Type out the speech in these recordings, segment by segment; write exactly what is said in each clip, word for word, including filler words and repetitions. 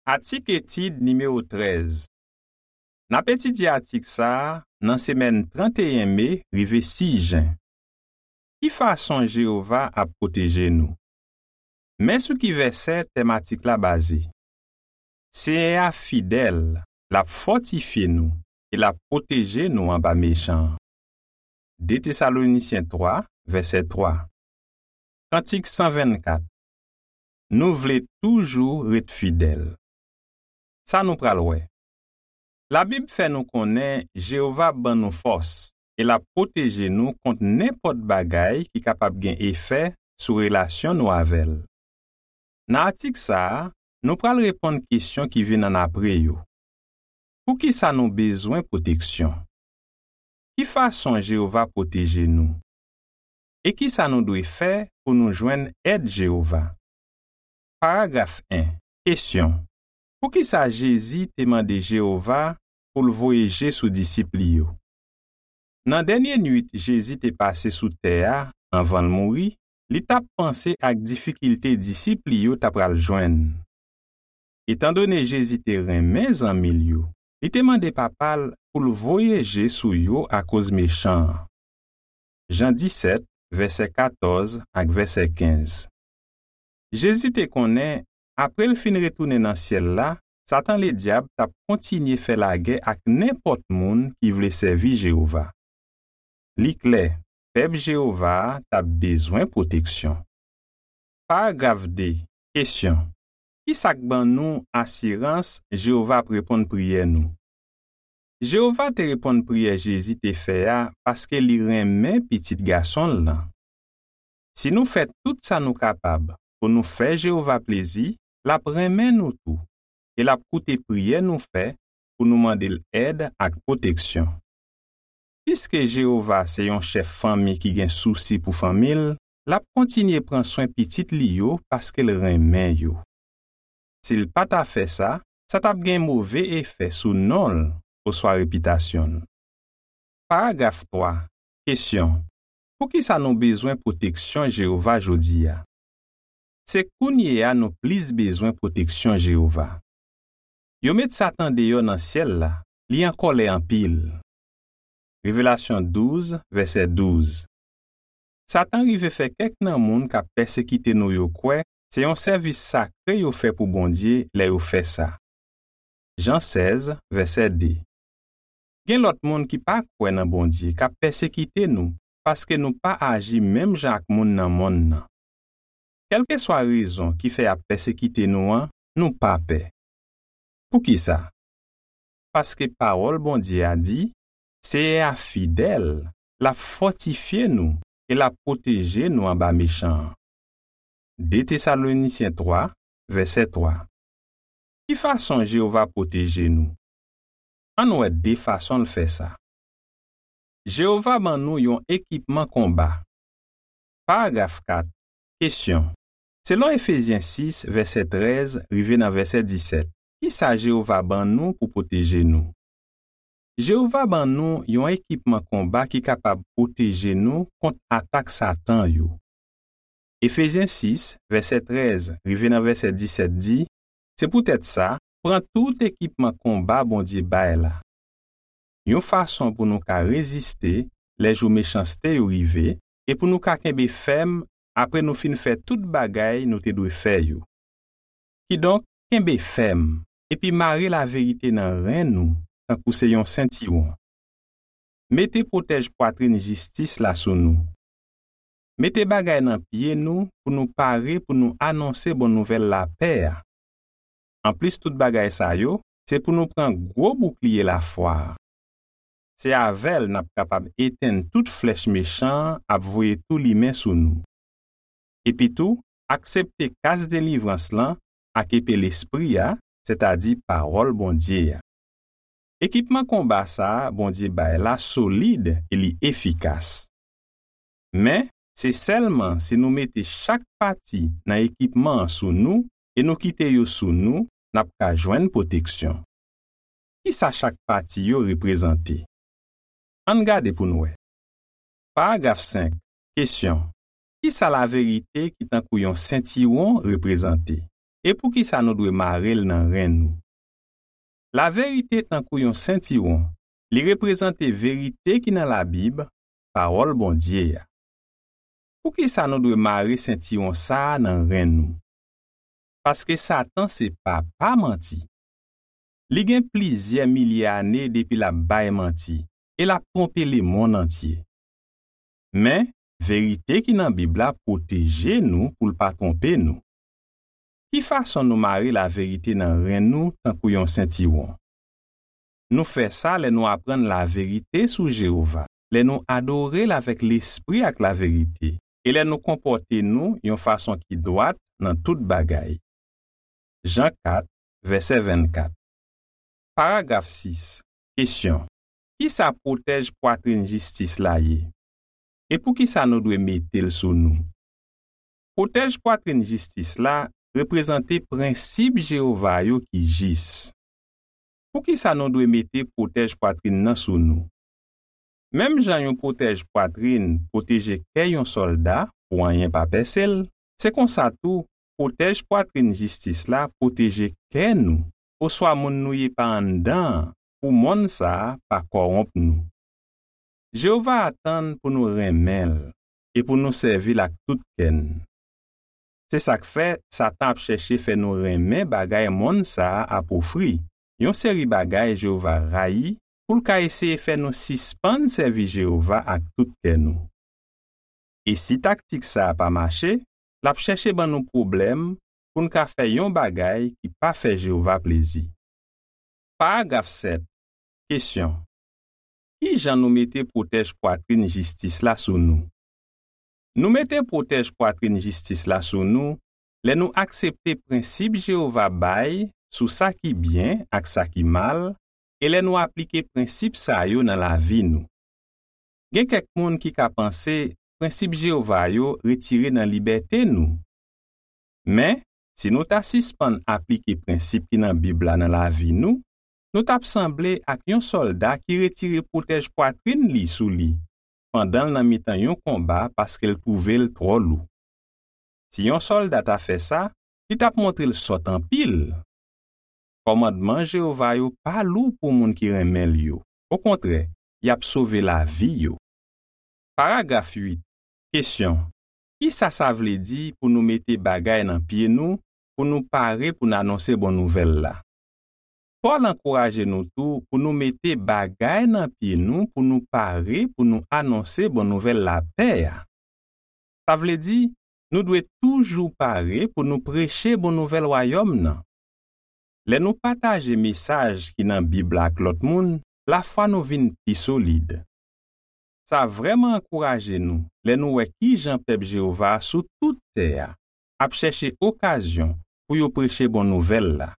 Atik etid nimewo trèz. N ap etidye atik sa a nan semèn tranteyen me rive sis jen. Ki fason Jewova ap pwoteje nou? Men sou ki vèsè tèm atik la baze. Senyè a fidèl, l ap fòtifye nou e l ap pwoteje nou anba mechan an. De Tesalonisyen twa, vèsè twa. Kantik san vennkat. Nou vle toujou ret fidèl. Sa nou pral wè. Labib fè nou konnen Jewova ban nou fòs e l ap pwoteje nou kont nenpòt bagay ki kapab gen efè sou relasyon nou avè l. Nan atik sa a, nou pral reponn kesyon ki vin annapre yo. Poukisa nou bezwen pwoteksyon? Ki fason Jewova pwoteje nou? E ki sa nou dwe fè pou nou jwenn èd Jewova? Paragraf en. Kesyon. Poukisa Jezi te mande Jewova pou l voye je sou disip li yo? Nan dènye nuit Jezi te pase sou tè a anvan l mouri, li t ap panse ak difikilte disip li yo ta pral jwenn. Etandone Jezi te renmen zanmi l yo, li te mande Papa l pou l voye je sou yo akoz mechan an. Jan disèt, vèsè katòz ak vèsè kenz. Jezi te konnen, apre l fin retounen nan syèl la, Satan Ledyab t ap kontinye fè lagè ak nenpòt moun ki vle sèvi Jewova. Li klè, pèp Jewova a t ap bezwen pwoteksyon. Paragraf de. Kesyon. Ki sa k ban nou asirans Jewova ap reponn priyè nou? Jewova te reponn priyè Jezi te fè a paske li renmen Pitit Gason l lan. Si nou fè tout sa nou kapab pou nou fè Jewova plezi, l ap renmen nou tou e l ap koute priyè nou fè pou nou mande l èd ak pwoteksyon. Piske Jewova se yon chèf fanmi ki gen sousi pou fanmi l, l ap kontinye pran swen pitit li yo paske l renmen yo. Si l pa ta fè sa, sa t ap gen move efè sou non l oswa repitasyon l. Paragraf twa. Kesyon. Poukisa nou bezwen pwoteksyon Jewova jodi a? Se kounye a nou plis bezwen pwoteksyon Jewova. Yo met Satan deyò nan syèl la, li an kòlè anpil. Revelasyon douz, vèsè douz. Satan rive fè kèk nan moun k ap pèsekite nou yo kwè se yon sèvis sakre yo fè pou Bondye lè yo fè sa. Jan sèz, vèsè de. Gen lòt moun ki pa kwè nan Bondye k ap pèsekite nou paske nou pa aji menm jan ak moun nan monn nan. Kèlkeswa rezon ki fè y ap pèsekite nou an, nou pa pè. Poukisa? Paske pawòl Bondye a di, Seyè a fidèl, l ap fòtifye nou e l ap pwoteje nou anba mechan an. De Tesalonisyen twa, vèsè twa. Ki fason Jewova pwoteje nou? Ann wè de fason l fè sa. Jewova ban nou yon ekipman konba. Paragraf kat. Kesyon. Selon Efezyen sis, vèsè trèz rive nan vèsè disèt, ki sa Jewova ban nou pou pwoteje nou? Jewova ban nou yon ekipman konba ki kapab pwoteje nou kont atak Satan yo. Efezyen sis, vèsè trèz rive nan vèsè disèt di, se poutèt sa, pran tout ekipman konba Bondye bay la. Yon fason pou nou ka reziste lè jou mechanste yo rive e pou nou ka kenbe fèm apre nou fin fè tout bagay nou te dwe fè yo. Kidonk, kenbe fèm epi mare laverite nan ren nou tankou se yon sentiwon. Mete pwotèj pwatrin jistis la sou nou. Mete bagay nan pye nou pou nou pare pou nou anonse bon nouvèl lapè a. Anplis tout bagay sa yo, se pou nou pran gwo boukliye lafwa a. Se avè l n ap kapab etenn tout flèch mechan an ap voye tou limen sou nou. Epitou, aksepte kas delivrans lan ak epe Lespri a, sètadi pawòl Bondye a. Ekipman konba sa a Bondye bay la solid e li efikas. Men, se sèlman si nou mete chak pati nan ekipman an sou nou e nou kite yo sou nou, n ap ka jwenn pwoteksyon. Ki sa chak pati yo reprezante? Ann gade pou n wè. Paragraf senk. Kesyon. Ki sa laverite ki tankou yon sentiwon reprezante? e poukisa nou dwe mare l nan ren nou? Laverite tankou yon sentiwon, li reprezante verite ki nan Labib, Pawòl Bondye a. Poukisa nou dwe mare sentiwon sa a nan ren nou? Paske Satan se papa manti. Li gen plizyè milye ane depi l ap bay manti e l ap twonpe lemonn antye. Men, verite ki nan Bib la pwoteje nou pou l pa twonpe nou. Ki fason nou mare laverite nan ren nou tankou yon sentiwon? Nou fè sa lè nou aprann laverite sou Jewova, lè nou adore l avèk lespri ak laverite, e lè nou konpòte nou yon fason ki dwat nan tout bagay. Jan kat, vèsè vennkat. Paragraf sis. Kesyon. Kisa pwotèj pwatrin jistis la ye? E poukisa nou dwe mete l sou nou? Pwotèj pwatrin jistis la reprezante prensip Jewova yo ki jis. Poukisa nou dwe mete pwotèj pwatrin nan sou nou? Menm jan yon pwotèj pwatrin pwoteje kè yon sòlda pou anyen pa pèse l, se konsa tou, pwotèj pwatrin jistis la pwoteje kè nou, oswa moun nou ye pa anndan an, pou mòn sa a pa kòwonp nou. Jewova atann pou nou renmen l e pou nou sèvi l ak tout kè n. Se sa k fè Satan ap chèche fè nou renmen bagay mond sa a ap ofri, yon seri bagay Jewova rayi, pou l ka eseye fè nou sispann sèvi Jewova ak tout kè nou. E si taktik sa a pa mache, l ap chèche ban nou pwoblèm pou n ka fè yon bagay ki pa fè Jewova plezi. Paragraf sèt. Kesyon. Ki jan nou mete pwotèj pwatrin jistis la sou nou? Nou mete pwotèj pwatrin jistis la sou nou lè nou aksepte prensip Jewova bay sou sa ki byen ak sa ki mal, e lè nou aplike prensip sa yo nan lavi nou. Gen kèk moun ki ka panse prensip Jewova yo retire nan libète nou. Men, si nou ta sispann aplike prensip ki nan Bib la nan lavi nou, nou t ap sanble ak yon sòlda ki retire pwotèj pwatrin li sou li, pandan l nan mitan yon konba paske l twouve l twò lou. Si yon sòlda ta fè sa, li t ap montre l sòt anpil. Kòmandman Jewova yo pa lou pou moun ki renmen l yo. Okontrè, y ap sove lavi yo. Paragraf uit. Kesyon. Kisa sa vle di pou nou mete bagay nan pye nou pou nou pare pou n anonse bon nouvèl la? Pòl ankouraje nou tou pou nou mete bagay nan pye nou pou nou pare pou nou anonse bon nouvèl lapè a. Sa vle di, nou dwe toujou pare pou nou preche bon nouvèl Wayòm nan. Lè nou pataje mesaj ki nan Bib la ak lòt moun, lafwa nou vin pi solid. Sa vrèman ankouraje nou lè nou wè ki jan pèp Jewova a sou tout tè a ap chèche okazyon pou yo preche bon nouvèl la,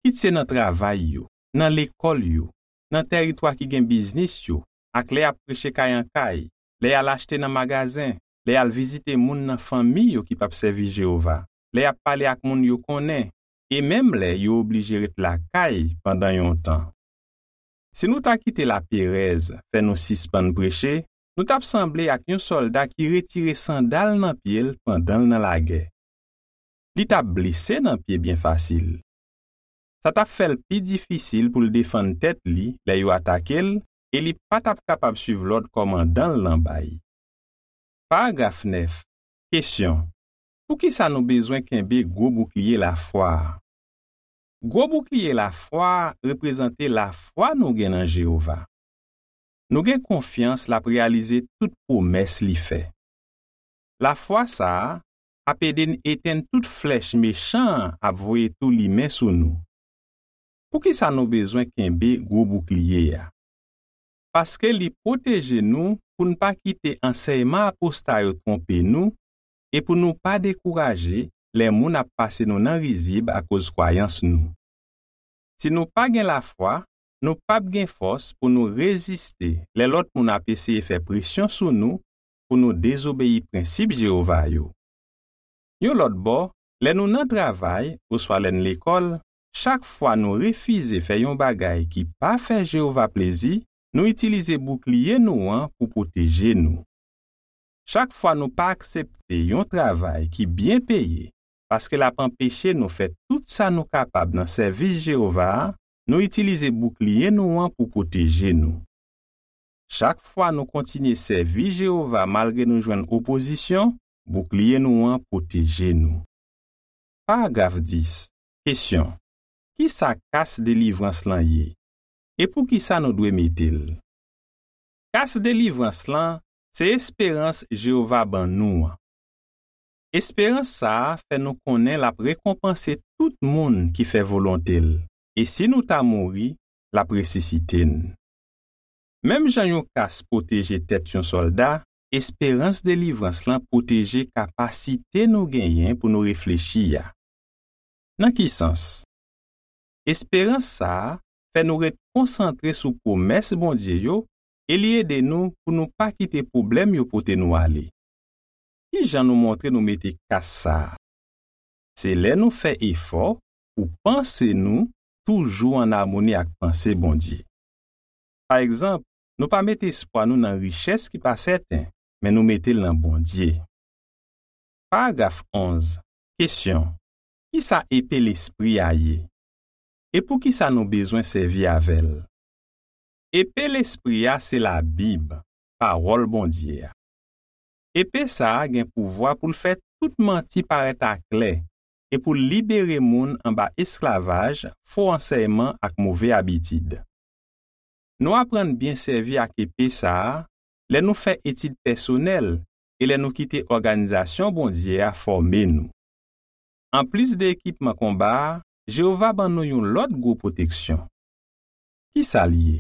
kit se nan travay yo, nan lekòl yo, nan tèritwa ki gen biznis yo, ak lè y ap preche kay an kay, lè y al achte nan magazen, lè y al vizite moun nan fanmi yo ki p ap sèvi Jewova, lè y ap pale ak moun yo konnen, e menm lè yo oblije ret lakay pandan yon tan. Si nou ta kite laperèz fè nou sispann preche, nou t ap sanble ak yon sòlda ki retire sandal nan pye l pandan l nan lagè. Li t ap blese nan pye byen fasil. Sa t ap fè l pi difisil pou l defann tèt li lè yo atake l, e li pa t ap kapab suiv lòd kòmandan l lan bay. Paragraf nèf. Kesyon. Poukisa nou bezwen kenbe gwo boukliye lafwa a? Gwo boukliye lafwa a reprezante lafwa nou gen nan Jewova. Nou gen konfyans l ap reyalize tout pwomès li fè. Lafwa sa a ap ede n etenn tout flèch mechan an ap voye tou limen sou nou. Poukisa nou bezwen kenbe gwo boukliye a? Paske li pwoteje nou pou n pa kite ansèyman aposta yo twonpe nou e pou nou pa dekouraje lè moun ap pase nou nan rizib akoz kwayans nou. Si nou pa gen lafwa, nou p ap gen fòs pou nou reziste lè lòt moun ap eseye fè presyon sou nou pou nou dezobeyi prensip Jewova yo. Yon lòt bò, lè nou nan travay oswa lè n lekòl, chak fwa nou refize fè yon bagay ki pa fè Jewova plezi, nou itilize boukliye nou an pou pwoteje nou. Chak fwa nou pa aksepte yon travay ki byen peye paske l ap anpeche nou fè tout sa nou kapab nan sèvis Jewova a, nou itilize boukliye nou an pou pwoteje nou. Chak fwa nou kontinye sèvi Jewova malgre nou jwenn opozisyon, boukliye nou an pwoteje nou. Paragraf dis. Kesyon. Ki sa kas delivrans lan ye? E poukisa nou dwe mete l? Kas delivrans lan se esperans Jewova ban nou an. Esperans sa a fè nou konnen l ap rekonpanse tout moun ki fè volonte l, e si nou ta mouri, l ap resisite n. Menm jan yon kas pwoteje tèt yon sòlda, esperans delivrans lan pwoteje kapasite nou genyen pou nou reflechi a. Nan ki sans? Esperans sa a fè nou ret konsantre sou pwomès Bondye yo e li ede nou pou nou pa kite pwoblèm yo pote nou ale. Ki jan nou montre nou mete kas sa a? Se lè nou fè efò pou panse nou toujou ann amoni ak panse Bondye. Pa egzanp, nou pa mete espwa nou nan richès ki pa sèten, men nou mete l nan Bondye. Paragraf onz. Kesyon. Ki sa epe Lespri a ye? E poukisa nou bezwen sèvi avè l? Epe Lespri a se Labib, Pawòl Bondye a. Epe sa a gen pouvwa pou l fè tout manti parèt aklè e pou l libere moun anba esklavaj fo ansèyman ak move abitid. Nou aprann byen sèvi ak epe sa a lè nou fè etid pèsonèl e lè nou kite òganizasyon Bondye a fòme nou. Anplis de ekipman konba a, Jewova ban nou yon lòt gwo pwoteksyon. Ki sa l ye?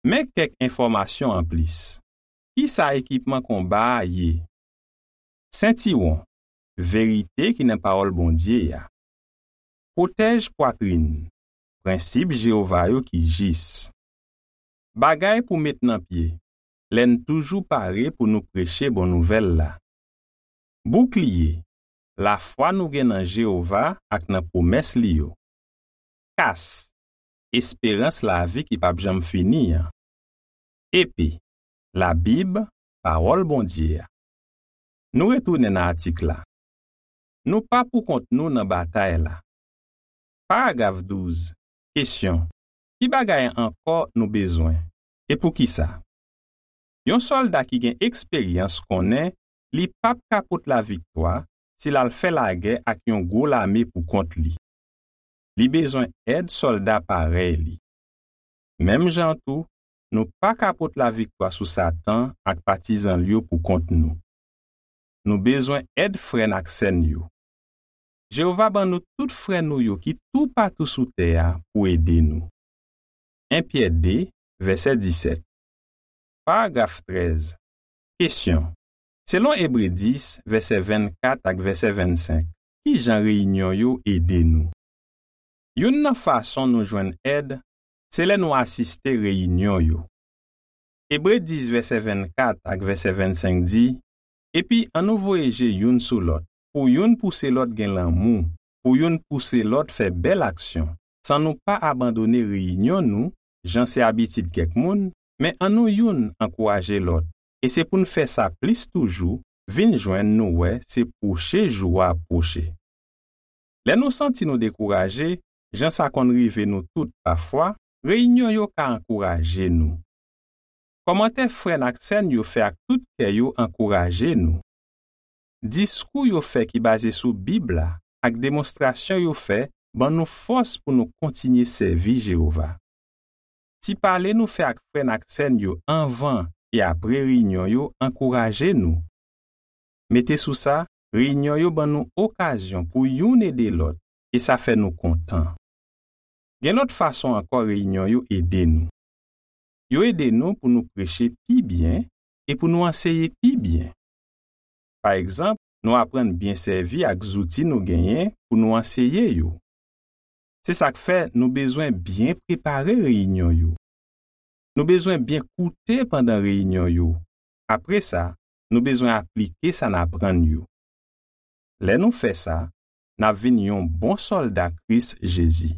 Men kèk enfòmasyon anplis. Ki sa ekipman konba a ye? Sentiwon, verite ki nan Pawòl Bondye a. Pwotèj pwatrin, prensip Jewova yo ki jis. Bagay pou met nan pye, lè n toujou pare pou nou preche bon nouvèl la. Boukliye, lafwa nou gen nan Jewova ak nan pwomès li yo. Kas, esperans lavi ki p ap janm fini an. Epe, Labib, Pawòl Bondye a. Nou retounen nan atik la. Nou pa poukont nou nan batay la. Paragraf douz. Kesyon. Ki bagay ankò nou bezwen? E poukisa? Yon sòlda ki gen eksperyans konnen li p ap ka pot laviktwa si l al fè lagè ak yon gwo lame poukont li. Li bezwen èd sòlda parèy li. Menm jan tou, nou pa ka pot laviktwa sou Satan ak patizan l yo poukont nou. Nou bezwen èd frè n ak sè n yo. Jewova ban nou tout frè nou yo ki toupatou sou tè a pou ede nou. En Pyè de, vèsè disèt. Paragraf trèz. Kesyon. Selon Ebre dis, vèsè vennkat ak vèsè vennsenk, ki jan reyinyon yo ede nou? Youn nan fason nou jwenn èd, se lè nou asiste reyinyon yo. Ebre dis, vèsè vennkat ak vèsè vennsenk di, epi annou voye je youn sou lòt, pou youn pouse lòt gen lanmou, pou youn pouse lòt fè bèl aksyon, san nou pa abandone reyinyon nou, jan se abitid kèk moun, men annou youn ankouraje lòt, e se pou n fè sa plis toujou, vin jwenn nou wè se pwoche jou a ap pwoche. Lè nou santi nou dekouraje, jan sa konn rive nou tout pafwa, reyinyon yo ka ankouraje nou. Kòmantè frè n ak sè n yo fè ak tout kè yo ankouraje nou. Diskou yo fè ki baze sou Bib la ak demonstrasyon yo fè ban nou fòs pou nou kontinye sèvi Jewova. Ti pale nou fè ak frè n ak sè n yo anvan e apre reyinyon yo ankouraje nou. Mete sou sa, reyinyon yo ban nou okazyon pou youn ede lòt, e sa fè nou kontan. Gen lòt fason ankò reyinyon yo ede nou. Yo ede nou pou nou preche pi byen e pou nou anseye pi byen. Pa egzanp, nou aprann byen sèvi ak zouti nou genyen pou nou anseye yo. Se sa k fè nou bezwen byen prepare reyinyon yo. Nou bezwen byen koute pandan reyinyon yo. Apre sa, nou bezwen aplike sa n aprann yo. Lè nou fè sa, n ap vin yon bon sòlda Kris Jezi.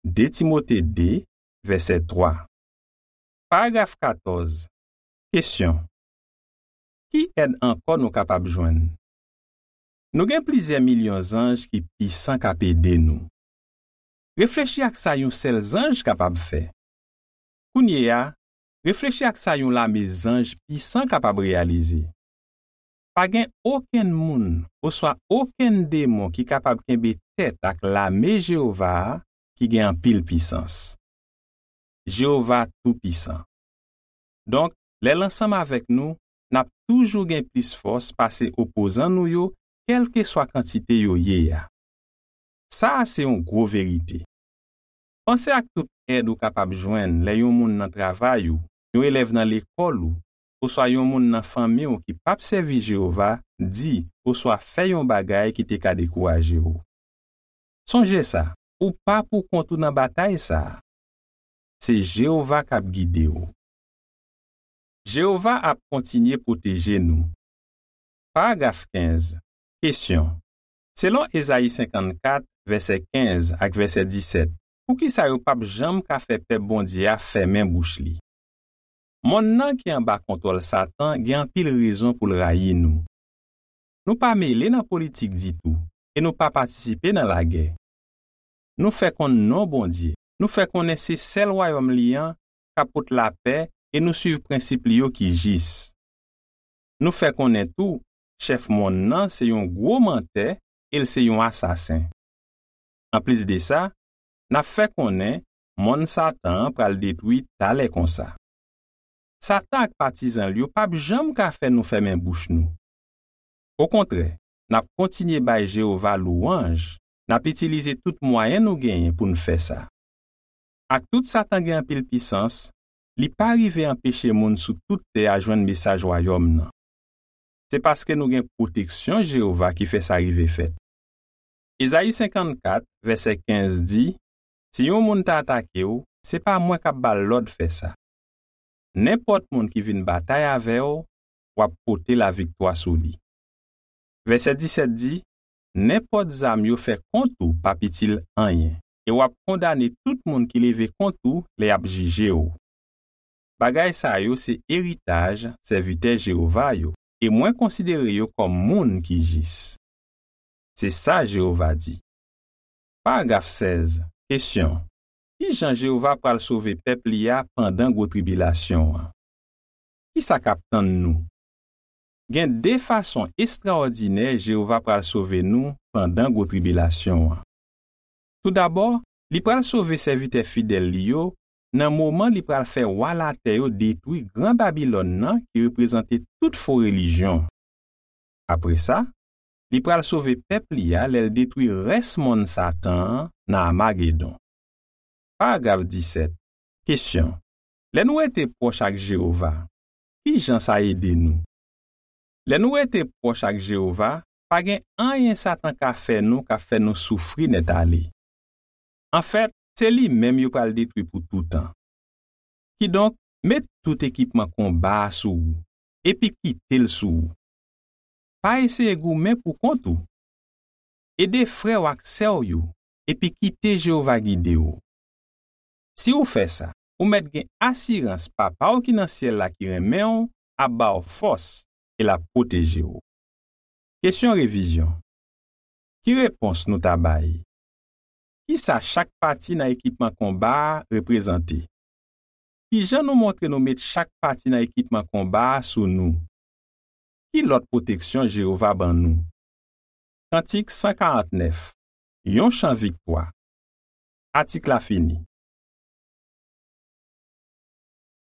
De Timote de, vèsè twa. Paragraf katòz. Kesyon. Ki èd ankò nou kapab jwenn? Nou gen plizyè milyon zanj ki pisan k ap ede nou. Reflechi ak sa yon sèl zanj kapab fè. Kounye a, reflechi ak sa yon lame zanj pisan kapab reyalize. Pa gen okenn moun oswa okenn demon ki kapab kenbe tèt ak lame Jewova a ki gen anpil pisans. Jewova toupisan. Donk, lè l ansanm avèk nou, n ap toujou gen plis fòs pase opozan nou yo, kèlkeswa kantite yo ye a. Sa a se yon gwo verite. Panse ak tout èd ou kapab jwenn lè yon moun nan travay ou, yon elèv nan lekòl ou, oswa yon moun nan fanmi w ki p ap sèvi Jewova di oswa fè yon bagay ki te ka dekouraje w. Sonje sa, ou pa poukont ou nan batay sa a. Se Jewova k ap gide w. Jewova ap kontinye pwoteje nou. Paragraf kenz. Kesyon. Selon Ezayi senkannkat, vèsè kenz ak vèsè disèt, poukisa yo p ap janm ka fè pèp Bondye a fèmen bouch li? Monn nan ki anba kontwòl Satan gen anpil rezon pou l rayi nou. Nou pa mele nan politik ditou e nou pa patisipe nan lagè. Nou fè konn non Bondye, nou fè konnen se sèl wayòm li an k ap pot lapè e nou suiv prensip li yo ki jis. Nou fè konnen tou, chèf monn nan se yon gwo mantè e l se yon asasen. Anplis de sa, n ap fè konnen monn Satan an pral detwi talè konsa. Satan ak patizan l yo p ap janm ka fè nou fèmen bouch nou. Okontrè, n ap kontinye bay Jewova lwanj, n ap itilize tout mwayen nou genyen pou n fè sa. Ak tout Satan gen anpil pisans, li pa rive anpeche moun sou tout tè a jwenn mesaj Wayòm nan. Se paske nou gen pwoteksyon Jewova ki fè sa rive fèt. Ezayi senkannkat, vèsè kenz di, "Si yon moun ta atake w, se pa mwen k ap ba l lòd fè sa. Nenpòt moun ki vin batay avè w, w ap pote laviktwa sou li." Vèsè disèt di, "Nenpòt zam yo fè kont ou p ap itil anyen, e w ap kondane tout moun ki leve kont ou lè y ap jije w." Bagay sa yo se eritaj sèvitè Jewova yo, e mwen konsidere yo kòm moun ki jis. Se sa Jewova di. Paragraf sèz. Kesyon. Ki jan Jewova pral sove pèp li a pandan gwo tribilasyon an? Ki sa k ap tann nou? Gen de fason estrawòdinè Jewova pral sove nou pandan gwo tribilasyon an. Toudabò, li pral sove sèvitè fidèl li yo nan moman li pral fè wa latè yo detwi Gran Babilòn nan ki reprezante tout fo relijyon. Apre sa, li pral sove pèp li a lè l detwi rès monn Satan an nan Amagedon. Paragraf disèt. Kesyon. Lè nou rete pwòch ak Jewova, ki jan sa ede nou? Lè nou rete pwòch ak Jewova, pa gen anyen Satan ka fè nou k ap fè nou soufri nètale. Anfèt, se li menm yo pral detwi pou toutan. Kidonk, met tout ekipman konba a sou ou, epi kite l sou ou. Pa eseye goumen pou kont ou. Ede frè w ak sè w yo, epi kite Jewova gide w. Si w fè sa, ou mèt gen asirans Papa w ki nan syèl la ki renmen w ap ba w fòs e l ap pwoteje w. Kesyon revizyon. Ki repons nou ta bay? Ki sa chak pati nan ekipman konba a reprezante? Ki jan nou montre nou met chak pati nan ekipman konba a sou nou? Ki lòt pwoteksyon Jewova ban nou? Kantik san karant nèf. Yon chan viktwa. Atik la fini.